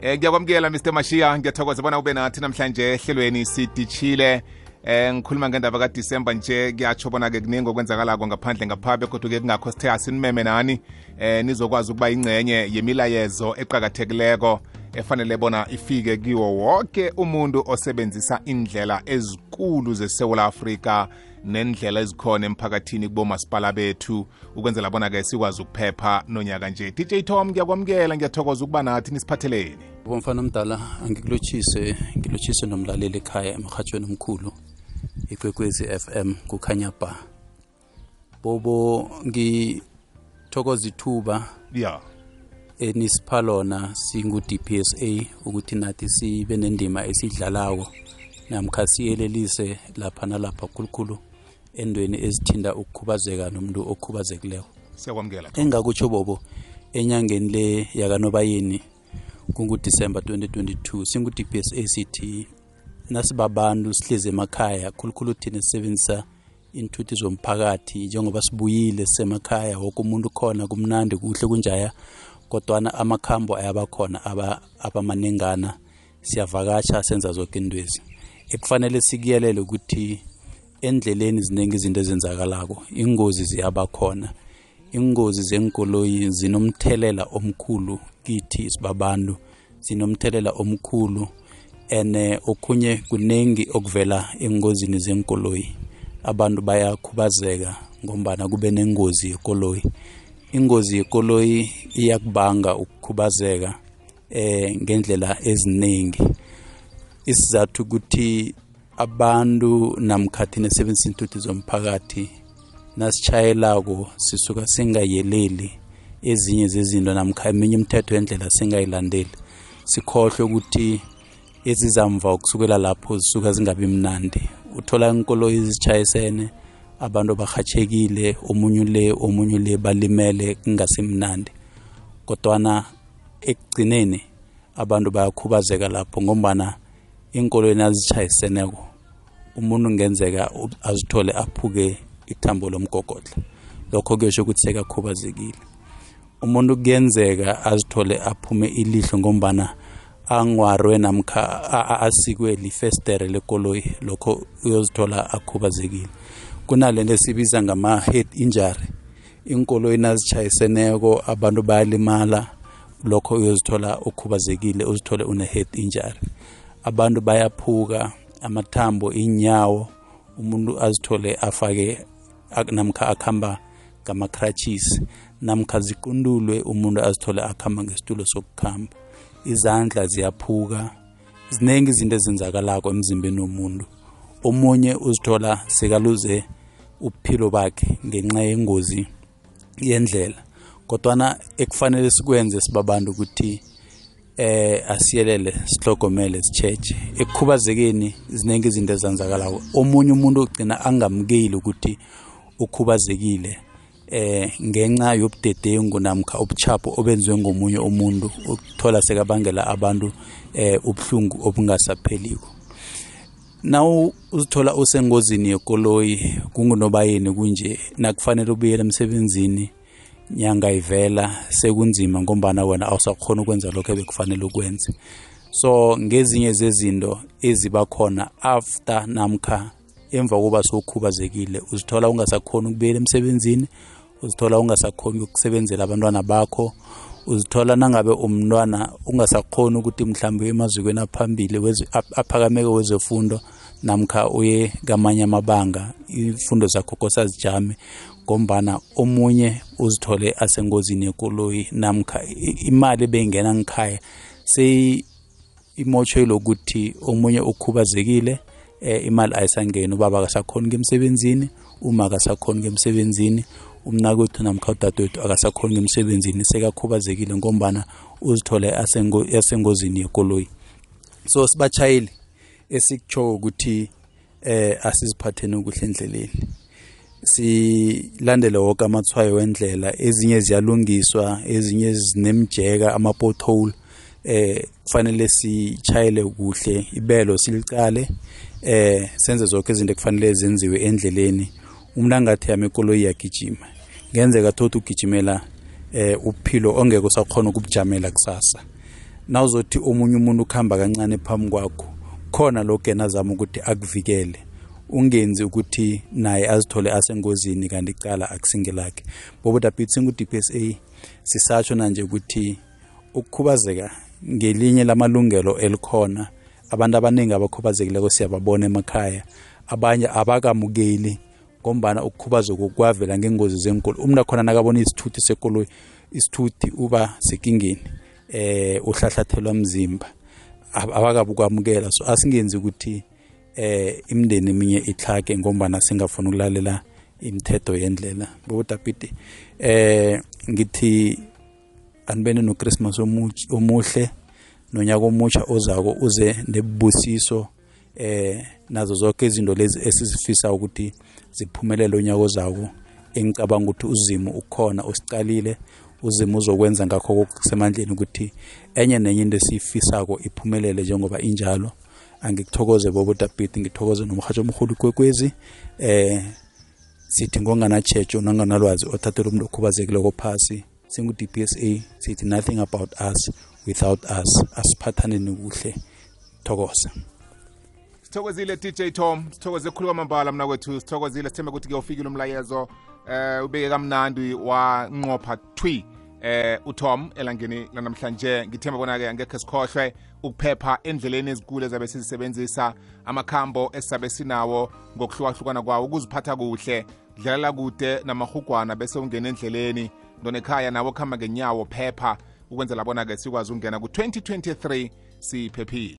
Ngiyakwamukela Mr Mashiya, ngiyathokoza bona ube nathi namhlanje ehlelweni sidishile. Ngikhuluma ngendaba kaDisemba nje, kuyatsho bona ke kuningi okwenzakalako ngaphandle ngapha kodwa ke kungakho sithe asinimeme nani nizokwazi ukuba ingcenye yemilayezo eqhakathekileko efanele bona ifike kiwo wonke umuntu osebenzisa indlela ezikulu zeSouth Africa nendlela ezikhona emphakathini kubomasipala bethu ukwenzela bona ke sikwazi ukuphepha nonyaka nje. DJ Tom, ngiyakwamukela, ngiyathokoza ukuba nathi nisiphatheleni. Bomfana mdala, ngilotshise nomlaleli ekhaya emhathweni omkhulu iKwekwezi FM kukhanya ba. Bobo ngithokoza ithuba enisiphalona singu DPSA ukuthi nathi sibe nendima esidlalayo namkha siyelelise lapha nalapha khulukhulu endweni ezithinda ukukhubazeka nomuntu okhubazekileko. Siyakwamukela. Engakutsho bobo enyangeni le yakanobayeni kungu-December 2022 singu-DPSA sithi nasibabantu sihlezi emakhaya khulukhulu thina sisebenzisa inthuthi zomphakathi njengoba sibuyile sisemakhaya wonke umuntu khona kumnandi kuhle kunjaya kodwana amakhambo ayabakhona abamanengana siyavakatsha senza zonke indwezi ekufanele sikuyelele ukuthi endleleni zinengi izinto ezenzakalako ingozi ziyabakhona ingozi zenkoloyi zinomthelela omkhulu kithi sibabantu zinomthelela omkhulu ene okunye kunengi okuvela engozini zenkoloyi abantu bayakhubazeka ngombana kube nengozi yekoloyi ingozi yekoloyi iyakubanga ukukhubazeka ngendlela eziningi isizathu ukuthi abantu namkhathi nesebenzisa inthuthi zomphakathi nasitshayelako sisuka singayeleli ezinye zezinto namkha eminye imithetho yendlela singayilandeli sikhohle ukuthi ezizamva ukusukela lapho zisuka zingabi mnandi uthola inkoloyi ezitshayisene abantu bahatshekile omunye le balimele kungasimnandi kodwana ekugcineni abantu bayakhubazeka lapho ngombana inkoloyi nazitshayiseneko umuntu ngenzeka azithole aphuke ithambo lomgogodla lokho kuyesho ukuthi sekakhubazekile umuntu kuyenzeka azithole aphume ilihlo ngombana angwarwe namkha asikwe lifestere lekoloyi lokho uyozithola akhubazekile kunalento esibiza ngama-head injury inkoloyi nazitshayiseneko abantu bayalimala lokho uyozithola ukhubazekile uzithole une-head injury abantu bayaphuka amathambo inyawo umuntu azithole afake namkha akhamba ngama-crutches namkha ziqundulwe umuntu azithole akhamba ngesitulo sokukhamba izandla ziyaphuka zinengi izinto ezenzakalako emzimbeni womuntu omunye uzithola sekaluze uphilo bakhe ngenxa yengozi yendlela kodwana ekufanele sikwenze sibabantu ukuthi asiyelele sihlogomele sitshetshe ekukhubazekeni zinengi izinto ezenzakalako omunye umuntu ugcina angamukeli ukuthi ukhubazekile ngenxa yobudedengu namkha ubuchapho obenziwe ngomunye umuntu ukuthola sekabangela abantu ubuhlungu obungasapheliko nawu uzithola usengozini yekoloyi kungunobayeni kunje nakufanele ubuyele emsebenzini nyanga ivela sekunzima ngombana wena awusakhona ukwenza lokho ebekufanele ukwenze so ngezinye zezinto ezibakhona after namkha emva kokuba sokhubazekile uzithola ungasakhona ukubuyela emsebenzini uzithola ungasakhona ukusebenzela abantwana bakho uzithola nangabe umntwana ungasakhona ukuthi mhlawumbe emazikweni aphambili aphakameko wezefundo namkha uye kamanye amabanga ifundo zakho kosazijame ngombana omunye uzithole asengozini yekoloyi namkha imali bengena ngikhaya imotsho lokuthi omunye ukhubazekile imali ayisangeni ubaba akasakhona ngemsebenzini uma akasakhona ngemsebenzini umnakwethu namkha udadewethu akasakhona ngemsebenzini sekakhubazekile ngombana uzithole asengozini yekoloyi so sibatshayeli esikutsho ukuthi asiziphatheni ukuhle endleleni silandele wonke amathwayo wendlela ezinye ziyalungiswa ezinye zinemjeka ama-pothole kufanele sichayele kuhle ibelo silicale senze zonke izinto kufanele zenziwe endleleni umuntu angathi yami ikoloyi yagijima ngenzeka thothi ugijimela uphilo ongeke usakhona ukubujamela kusasa nawuzothi omunye umuntu ukhamba kancane phambi kwakho khona lokho yena azama ukuthi akuvikele ungenzi ukuthi naye azithole asengozini kanti icala akusingelakhe bobodapiti singu-DPSA sisatsho nanje ukuthi ukukhubazeka ngelinye lamalungelo elikhona abantu abaningi abakhubazekileko siyababona emakhaya abanye abakamukeli ngombana ukukhubazeka kwavela ngengozi zenkolo umuntu akhona nakabona isithuthi sekoloyi isithuthi uba sekingeni uhlahlathelwa mzimba abakabukwamukela so asingenzi ukuthi imindeni eminye itlhage ngombana singafuna ukulalela imithetho yendlela bobodapiti ngithi anibene noChristmas omuhle nonyaka omutsha ozako uze nebubusiso nazo zonke izinto lezi esizifisa ukuthi ziphumelele unyaka ozako engicabanga ukuthi uzimo ukhona usicalile uzimo uzokwenza ngakho okusemandleni ukuthi enye nenye into esifisako iphumelele njengoba injalo angikuthokoze bobodapiti ngithokoze nomhatsho omkhulu kwekwezi sithi ngongana checho nanganalwazi othathela umuntu okhubazekileko phasi singu-DPSA sithi nothing about us without us asiphathaneni kuhle thokoza sithokozile DJ Tom sithokoze khulu kwamambala mna kwethu sithokozile sithembe ukuthi kuyofikile umlayezo ubeke kamnandi wanqopha thwi uTom elangeni lanamhlanje ngithemba bona-ke angekhe sikhohlwe ukuphepha endleleni ezikule ezabe sizisebenzisa amakhambo esizabe sinawo ngokuhlukahlukana kwawo ukuziphatha kuhle dlalela kude namahugwana bese ungena endleleni ndonekhaya nawo kuhamba ngenyawo phepha ukwenzela bona-ke sikwazi ukungena ku-2023 siphephile.